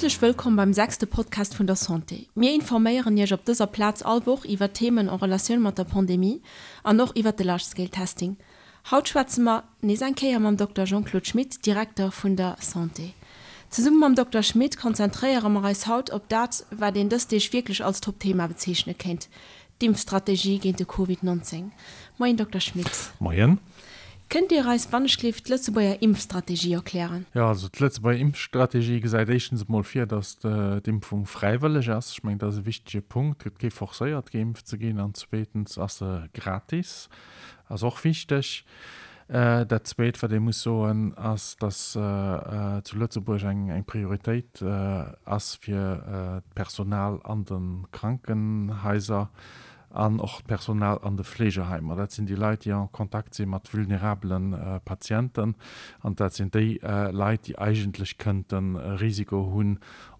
Häerzlech wëllkomm beim sechste Podcast vun der Santé. Mir informéieren Iech op dëser Plaz all Woch iwwer Themen en Relatioun mat der Pandemie an och iwwer de Large Scale Testing. Haut schwätze mer nees eng Kéier mam Dokter Jean-Claude Schmit, Direkter vun der Santé. Zesumme mam Dokter Schmit konzentréiere mer eis haut op dat, wat een dës Deeg wierklech als Top-Thema bezeechne kéint, d'Impfstrategie géint de Covid 19. Moien Dokter Schmit. Moien. Kënnt Dir eis wannechgelift d'Lëtzebuerger Impfstrategie erklären? Jo, also d'Lëtzebuerger Impfstrategie gesäit éischtens emol vir, datt d'Impfung fräiwëlleg ass. Ech mengen, dat ass e wichtege Punkt. Et gëtt kee forcéiert, geimpft ze ginn. An zweetens ass se gratis. Ass och wichteg. Dat Zweet, wat ee muss soen, ass, datt zu Lëtzebuerg eng Prioritéit ass fir d'Personal an de Krankenhaiser an och d'Personal an de Fleegeheimer. Dat sinn déi Leit, déi en Kontakt si mat vulnerabele Patienten. An dat sinn déi Leit, déi eigentlech kënnte Risiko hunn,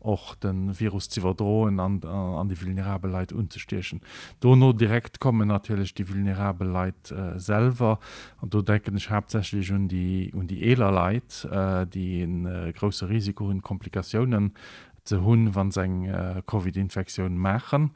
och de Virus z'iwwerdroen an an déi vulnerabel Leit unzestiechen. Dono direkt kommen natierlech déi vulnerabel Leit selwer, an do denken ech haaptsächlech un déi un déi eeler Leit, déi e grousse Risiko hunn, Komplikatiounen ze hunn, wa se eng Covid-Infektioun maachen.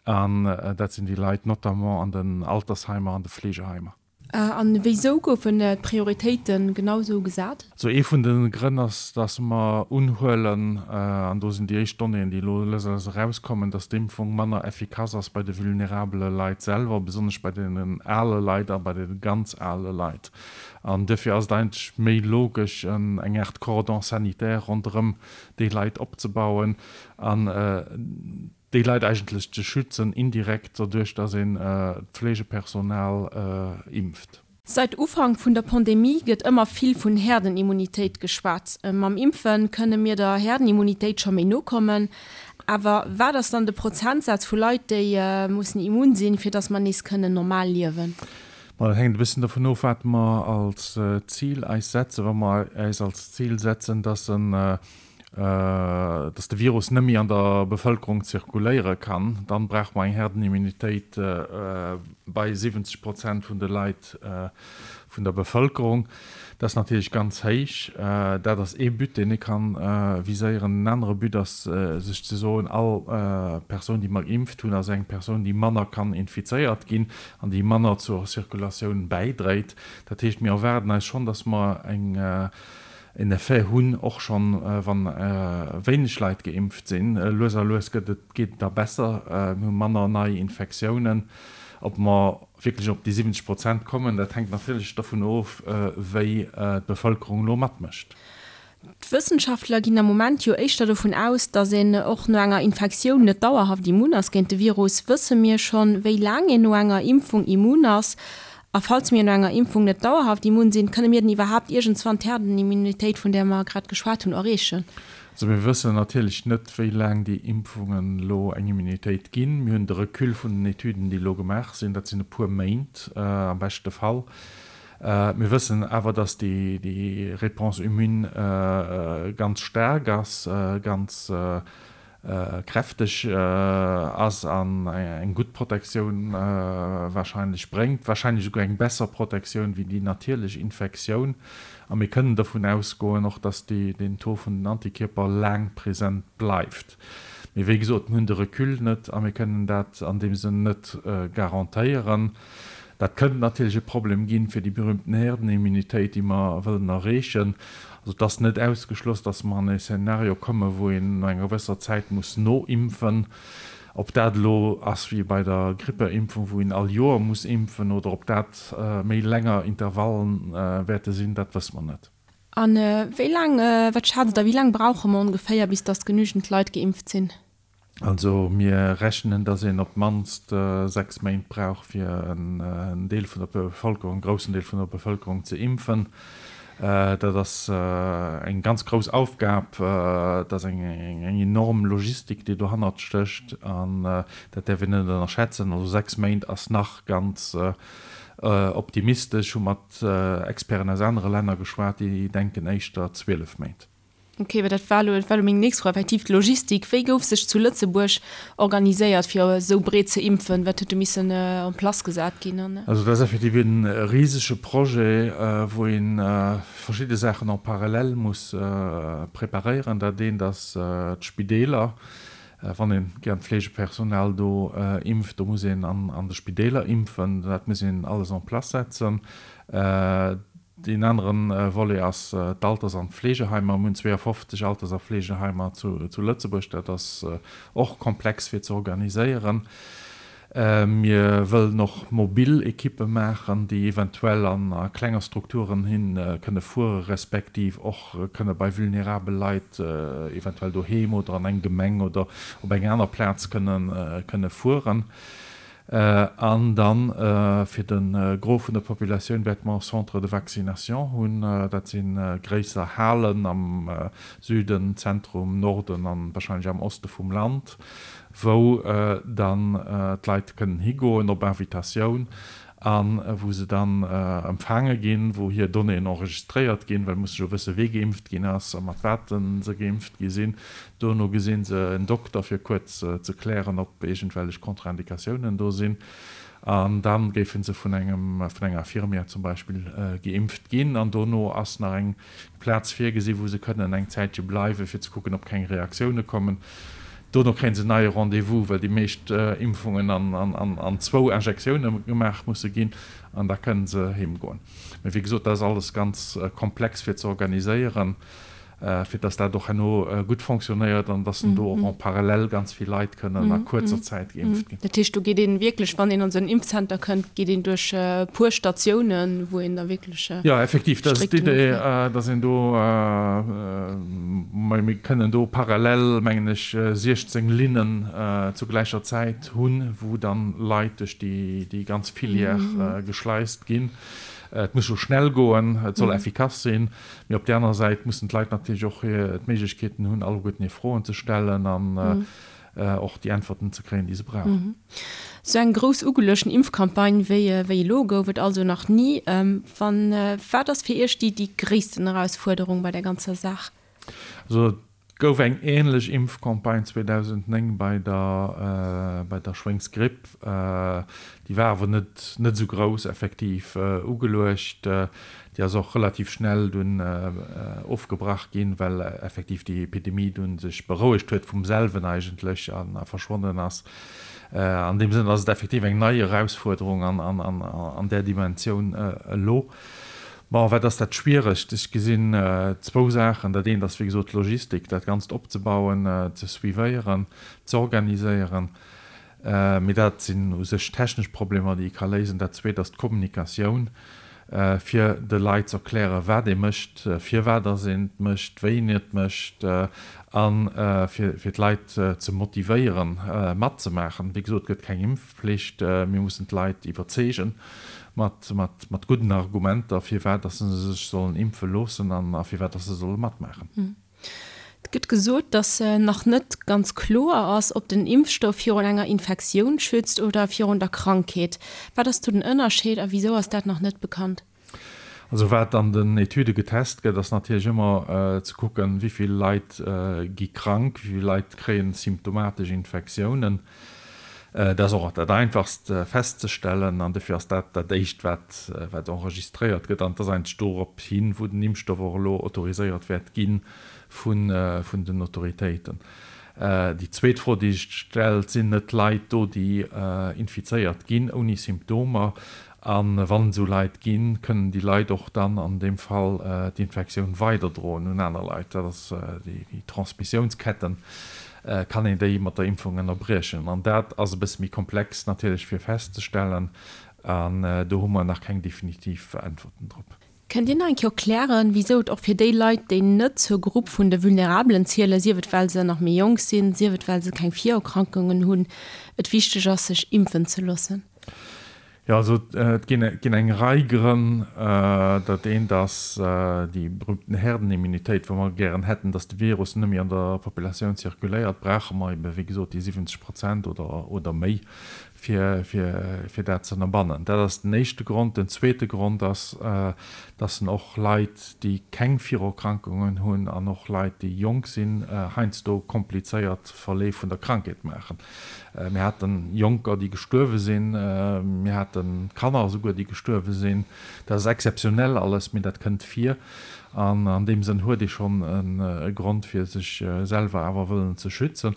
An dat sinn déi Leit notamment an den Altersheimer an de Fleegeheimer. An wéisou goufen d'Prioritéite genau sou gesat? Also ee vun de Grënn ass, datt mer unhuelen, an do sinn déi éischt Donnéeën, déi elo lues a lues erauskommen, datt d'Impfung manner effikass ass bei de vulnerabele Leit selwer, besonnesch bei deenen ale Leit a bei de ganz ale Leit. An duerfir ass et eigentlech méi logesch, eng Aart Cordon sanitaire ronderëm déi Leit opzebauen an déi Leit eigentlech ze schützen, indirekt doduerch, datt een d'Fleegepersonal impft. Seit Ufank vun der Pandemie gëtt ëmmer vill vun Herdenimmunitéit geschwat. Mam Impfe kënne mir der Herdenimmunitéit scho méi no kommen. Awer wat ass dann de Prozentsaz vu Leit, déi mussen immun sinn, fir datt mer nees kënnen normal liewen? Ma dat hänkt e bëssen dovun of, wat mer als Zil eis setzen. Wa mer eis als Zil setzen, datt en dass de Virus net méi an der Bevëlkerung zirkuléiere kann, dann brauche mer eng Herdenimmunitéit bei 70 Prozent vun de Leit vun der Bevëlkerung. Dat ass natierlech ganz héich. Dat ass ee But, deen ee kann viséieren. En anere But ass, sech ze soen, all Persoun, déi mer geimpft hunn, ass eng Persoun, déi manner kann infizéiert ginn an déi manner zur Zirkulatioun bäidréit. Dat heescht, mir erwaarden eis schonn, dass mer eng en Effet hunn, och schonn wann wéineg Leit geimpft sinn. Lues a lues gëtt et, geet et da besser, mir hu manner nei Infektiounen. Ob mer wierklech op déi 70 Prozent kommen, dat hänkt natierlech dovun of, wéi d'Bevëlkerung elo matmécht. D'Wëssenschaftler ginn am Moment jo éischter dovun aus, datt een och no enger Infektioun net dauerhaft immun ass géint de Virus. Wësse mir schonn, wéi laang een no enger Impfung immun ass? A falls mir no enger Impfung net dauerhaft immun sinn, kënne mir dann iwwerhaapt iergendswann d'Herdenimmunitéit, vun där mer grad geschwat hunn, erreechen? Also mir wëssen natierlech net, wéi laang déi Impfungen elo eng Immunitéit ginn. Mir hunn de Recul vun den Etüden, déi elo gemaach sinn, dat sinn e puer Méint am beschte Fall. Mir wëssen awer, datt déi Réponse immune ganz staark ass, ganz kräfteg ass an eng gutt Protektioun warscheinlech bréngt, warscheinlech esouguer eng besser Protektioun wéi déi natierlech Infektioun. A mir kënnen dovun ausgoen och, dass deen Taux vun den Antikierper laang present bleift. Mee wéi gesot, mir hunn de Recul net a mir kënnen dat an deem Sënn net garantéieren. Dat kënnt natierlech e Problem ginn fir déi berühmten Herdenimmunitéit, déi mer wëllen erreechen. Also et ass net ausgeschloss, datt mer an e Szenario kommen, wou een no enger gewësser Zäit muss noimpfen. Ob dat elo ass wéi bei der Grippeimpfung, wou een all Joer muss impfen, oder ob dat méi länger Intervallen wäerte sinn, dat wësse mer net. A wéi laang, wat schätzt Der, wéi laang brauche mer ongeféier, bis datt genügend Leit geimpft sinn? Also mir rechnen, datt een op d'mannst 6 Méint brauch, fir en Deel vun der Bevëlkerung, en groussen Deel vun der Bevëlkerung ze impfen. Dat ass eng ganz grouss Aufgab, dat ass eng enorm Logistik, déi dohannert stécht an dat däerf een net ënnerschätzen. Also 6 Méint ass nach ganz optimistesch. Hu mat Experten aus anere Länner geschwat, déi denken éischter 12 Méint. Ok, well dat war elo, dat war elo meng nächst Fro, effektiv d'Logistik. Wéi gouf sech zu Lëtzebuerg organiséiert, fir esou breet ze impfen? Wat huet do missen en place gesat ginn? An. Also dat ass effektiv e risege Projet, wou ee verschidde Saachen en parallèle muss preparéieren. Dat eent ass d'Spideeler. Wann ee gären d'Fleegepersonal do impft, do muss een an de Spideeler impfen. Dat muss een alles en place setzen. Deen anere Volet ass d'Alters an d'Fleegeheimer. Mir hunn 52 Alters a Fleegeheimer zu Lëtzebuerg. Dat ass och komplex fir ze organiséieren. Mir wëllen och mobil Ekippe maachen, déi eventuell a klenger Strukturen hin kënne fuere respektiv och kënne bei vulnerabel Leit eventuell doheem oder an eng Gemeng oder op eng aner Plaz kënne fueren. An dann fir de Gros vun der Populatioun wäerte mer Centres de vaccination hunn. Dat si gréisser Halen am Süden, Zentrum, Norden an wahrscheinlech am Oste vum Land, wou dann d'Leit kënnen higoen op Invitatioun a wou se dann empfaange ginn, wou hir Donnéeën enregistréiert ginn, well musse jo wësse wee geimpft ginn ass a mat wat se geimpft gi sinn. Dono gesi se en Dokter fir kuerz ze klären, ob iergendwellech Contre-indicatiounen do sinn. An da géife se vun engem, vun enger Infirmière zum Beispill geimpft ginn. An dono ass nach eng Plaz virgesi wou se kënnen eng Zäitche bleiwen, fir ze kucken, ob keng Reaktioune kommen. Dono kréie se en neie Rendez-vous, well déi meescht Impfungen an zwou Injektioune gemaach musse ginn. An da kënne se heem goen. Mee wéi gesot, dat ass alles ganz komplex fir ze organiséieren. fir dass dat och herno gutt fonctionnéiert an dass do och en parallèle ganz vill Leit kënnen a kuerzer Zäit geimpft ginn. Dat heescht, do geet een wierklech, wann een an esou en Impfzenter kënnt, geet een duerch e puer Statiounen, wou een da wierklech strikt. Jo, effektiv, dat ass d'Idee, dass een do, mir kënnen do parallel, mengen ech, 16 Linnen zu gläicher Zäit hunn, wou dann Leit duerch déi ganz Filière geschleist ginn. Et muss jo schnell goen, et soll effikass sinn. Mee op där anerer Säit mussen d'Leit natierlech och d'Méiglechkeeten hunn, alleguerten hir Froen ze stellen an och déi Äntwerten ze kréien, déi se brauchen. Esou eng grouss ugeluechten Impfcampagne wéi elo gouf et also nach ni. Wann, wat ass fir Iech déi déi gréissten Erausfuerderung bei der ganzer Saach? Also Et gouf eng änlech Impfcampagne 2009 bei der bei der Schwéngsgripp. Déi war awer net net esou grouss effektiv ugeluecht. Déi ass och relativ schnell dunn ofgebrach ginn, well effektiv déi Epidemie dunn sech berouegt huet vum selwen eigentlech a verschwonnen ass. An deem Sënn ass et effektiv eng nei Erausfuerderung an an an där Dimensioun elo. Bon, wat ass dat Schwieregst? Ech gesinn zwou Saachen. Dat eent ass, wéi gesot, d'Logistik, dat Ganzt opzebauen, ze suivéieren, ze organiséieren. Mee dat sinn u sech technesch Problemer, déi ee ka léisen. Dat Zweet ass d'Kommunikatioun, fir de Leit ze erklären, wat ee mécht, firwat dass een et mécht, wéi een et mécht a fir d'Leit ze motivéieren, matzemaachen. Wéi gesot, et gëtt keng Impfpflicht. Mir mussen d'Leit iwwerzeegen mat, mat, mat gudden Argumenter, firwat dass se sech sollen impfe loossen an a firwat dass se solle matmaachen. Et gëtt gesot, dass nach net ganz kloer ass, ob den Impfstoff virun enger Infektioun schützt oder virun der Krankheet. Wat ass do den Ënnerscheed a wisou ass dat nach net bekannt? Also wat an den Etüde getest gëtt, ass natierlech ëmmer ze kucken, wéi vill Leit gi krank, wéi vill Leit kréien symptomatesch Infektiounen. Dat ass och dat Einfachst festzestellen an dofir ass dat dat Éischt, wat wat enregistréiert gëtt. An et ass eigentlech dorop hin, wou den Impfstoff och elo autoriséiert wäert gi vun vun den Autoritéiten. Déi zweet Fro, déi sech stellt, Sinn net Leit do, déi infizéiert ginn ouni Symptomer? A wann esou Leit ginn, kënnen déi Leit och dann an deem Fall d'Infektioun weiderdroen un aner Leit. Dat ass déi Transmissiounsketten, kann een déi mat der Impfung ënnerbriechen. An dat ass e bësse méi komplex natierlech fir festzestellen an do hu mer nach keng definitiv Äntwerten drop. Kënnt Dir nach eng Kéier erklären, wisou et och fir déi Leit, déi net zur Grupp vun de Vulnerabelen zielen, sief et well se nach méi jonk sinn, sief et well se keng Virerkrankungen hunn, et wichteg ass, sech impfen ze loossen? Jo, also et ginn ginn eng Rei Grënn. Dat eent ass déi berühmten Herdenimmunitéit, wou mer gären hätten, datt de Virus net méi an der Populatioun zirkuléiert, brauche mer ebe wéi gesot déi 70 Prozent oder oder méi. fir, fir, fir dat ze ënnerbannen. Dat ass den éischte Grond. Den zweete Grond ass, dass en och Leit, déi keng Virerkrankungen hunn an och Leit, déi jonk sinn, heiansdo komplizéiert Verleef vun der Krankheet maachen. Mir hate Jonker, déi gestuerwe sinn, mir hate Kanner esouguer, déi gestuerwe sinn. Dat ass exzeptionell alles, mee dat kënnt vir. An an deem Sënn huet ee schonn e Grond, fir sech selwer awer wëllen ze schützen.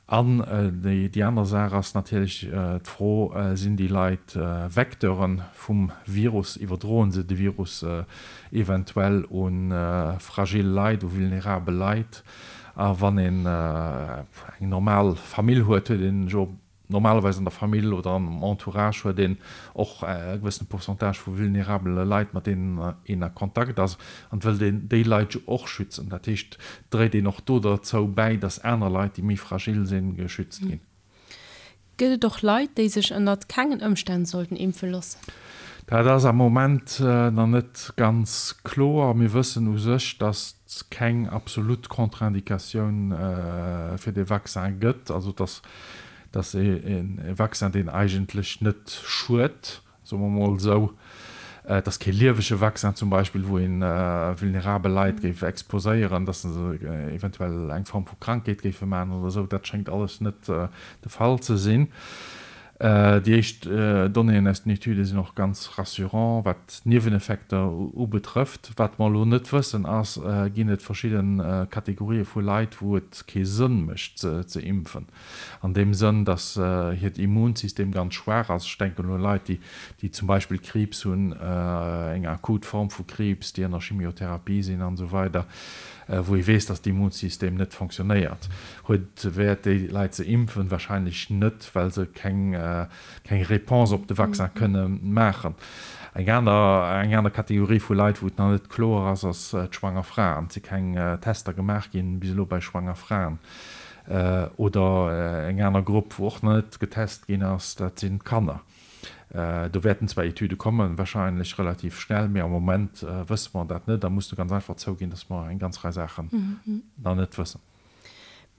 An déi aner Saach ass natierlech d'Fro, Sinn déi Leit Vecteure vum Virus? Iwwerdroen se de Virus eventuell u fragil Leit, u vulnerabel Leit? A wann een eng normal Famill huet, huet een jo normalerweis an der Famill oder am Entourage huet een och e gewëssene Pourcentage vu vulnerabele Leit, mat deenen een a Kontakt ass. An et wëllt een déi Leit jo och schützen. Dat heescht, dréit een och do derzou bäi, datt aner Leit, déi méi fragil sinn, geschützt ginn. Gëtt et och Leit, déi sech ënnert kengen Ëmstänn sollten impfe loossen? Dat ass am Moment nach net ganz kloer. Mir wëssen u sech, datt et keng absolut Contre-indicatioun fir dee Vaccin gëtt, also datt datt e Vaccin, deen eigentlech net schued, soe mer emol esou. Et ass kee liewege Vaccin zum Beispill, wou ee vulnerabel Leit géif exposéieren, datt se eventuell eng Form vu Krankheet géife maachen oder esou. Dat schéngt alles net de Fall ze sinn. Déi éischt Donnéeën aus den Etüde sinn och ganz rassurant, wat d'Nieweneffekter ubetrëfft. Wat mer elo net wëssen ass, ginn et verschidde Kategorië vu Leit, wou et kee Sënn mécht ze impfen? An deem Sënn, datt hiert Immunsystem ganz schwaach ass. Ech denken u Leit, déi zum Beispill Kriibs hunn, eng akut Form vu Kriibs, déi ënner Chimiotherapie sinn an esou weider, wou ee weess, datt d'Immunsystem net fonctionnéiert. Huet et Wäert, déi Leit ze impfen? Wahrscheinlech net, well se keng Réponse op de Vaccin kënne maachen. Eng aner, eng aner Kategorie vu Leit, wou et nach net kloer ass, ass d'schwanger Fraen. Et si keng Tester gemaach ginn bis elo bei schwanger Fraen. Oder eng aner Grupp, wou och nach net getest ginn ass, dat sinn d'Kanner. Do wäerten zwar Etüde kommen, wahrscheinlech relativ schnell, mee am Moment wësse mer dat net a musse ganz einfach zouginn, dass mer eng ganz Rei Saachen nach net wëssen.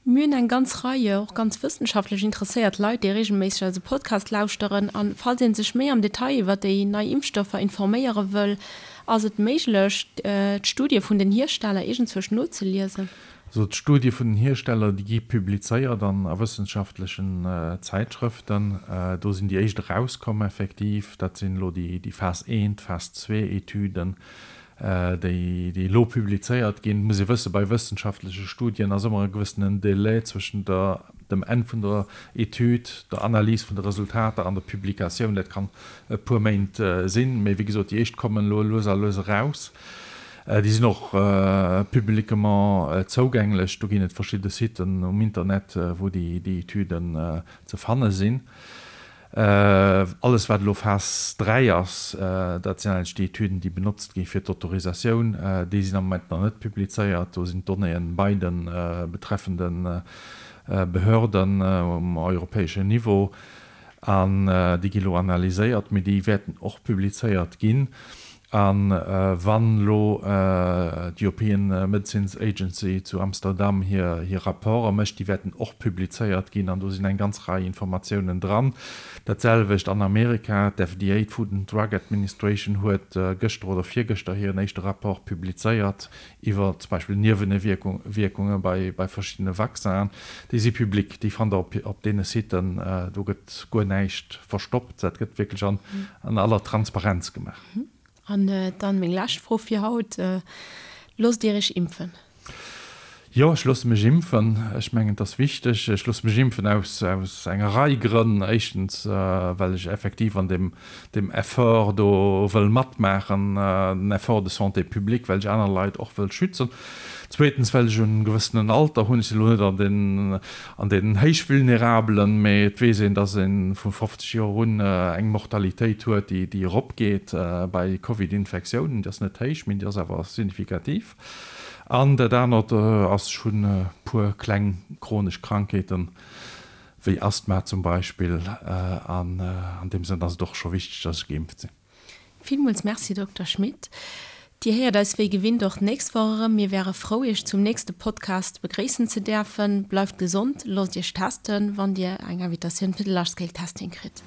Mir hunn eng ganz Rei och ganz wëssenschaftlech interesséiert Leit, déi reegelméisseg eise Podcast lauschteren. A falls ee sech méi am Detail iwwer déi nei Impfstoffer informéiere wëll, ass et méiglech, d'Studie vun den Hiersteller iergendzwousch nozeliesen? Also d'Studie vun den Hiersteller, déi gi publizéiert an a wëssenschaftlechen Zäitschrëften. Do sinn déi éischt erauskomm effektiv. Dat sinn elo déi Phas I, Phas II-Etüden, déi déi elo publizéiert ginn. Et muss ee wëssen, bei wëssenschaftleche Studien ass ëmmer e gewëssenen Delai zwëschen der, dem Enn vun der Etüd, der Analys vun de Resultater an der Publikatioun. Dat kann e puer Méint sinn. Mee wéi gesot, déi éischt kommen elo lues a lues eraus. Déi sinn och publiquement zougänglech. Do ginn et verschidde Siten um Internet, wou déi Etüden ze fanne sinn. Alles, wat elo Phas 3 ass, dat sinn eigentlech déi Etüden, déi benotzt gi fir d'Autorisatioun, déi sinn am Moment nach net publizéiert. Do sinn d'Donnéeën bei de betreffende Behörden um europäeschen Niveau. An déi gi lo analyséiert, mee déi wäerten och publizéiert ginn. A wann elo d'European Medicines Agency zu Amsterdam hir Rapporte mécht, déi wäerten och publizéiert ginn an do sinn eng ganz Rei Informatiounen dran. Dat selwecht an Amerika, d'FDA, d'Food and Drug Administration, huet gëschter oder virgëschter hiren éischte Rapport publizéiert iwwer zum Beispill Niewewierkunge bei verschiddene Vaccinen, déi si public, déi fannt Der op deene Siten, do gëtt guer näischt verstoppt, dat gëtt wierklech an aller Transparenz gemaach. An dann meng lescht Fro fir haut, Loosst Dir Iech impfen? Jo, ech loosse mech impfen. Ech mengen, et ass wichteg. Ech loosse mech impfen aus enger Rei Grënn. Éischtens, well ech effektiv an deem deem Effort do wëll matmaachen, den Effort de santé publique, well ech aner Leit och wëll schützen. Zweetens, well ech e gewëssenen Alter hunn. Ech sinn elo net an den, an den Héichvulnerabelen, mee et weess een, dass ee vu 50 Joer un eng Mortalitéit huet, déi, déi eropgeet bei Covid-Infektiounen. Déi ass net héich, mee déi ass awer signifikativ. An dat anert ass, ech hunn e puer kleng chronesch Krankheeten, wéi Asthma zum Beispill, an an deem Sënn ass et och scho wichteg, dass ech geimpft sinn. Villmools Merci, Dokter Schmit. Dir héiert eis wéi gewinnt och d'nächst Woch erëm. Mir wäre frou Iech zum nächste Podcast begréissen ze däerfen. Bleift gesond, loosst Iech testen, wann Dir eng Invitatioun fir de Large Scale Testing kritt.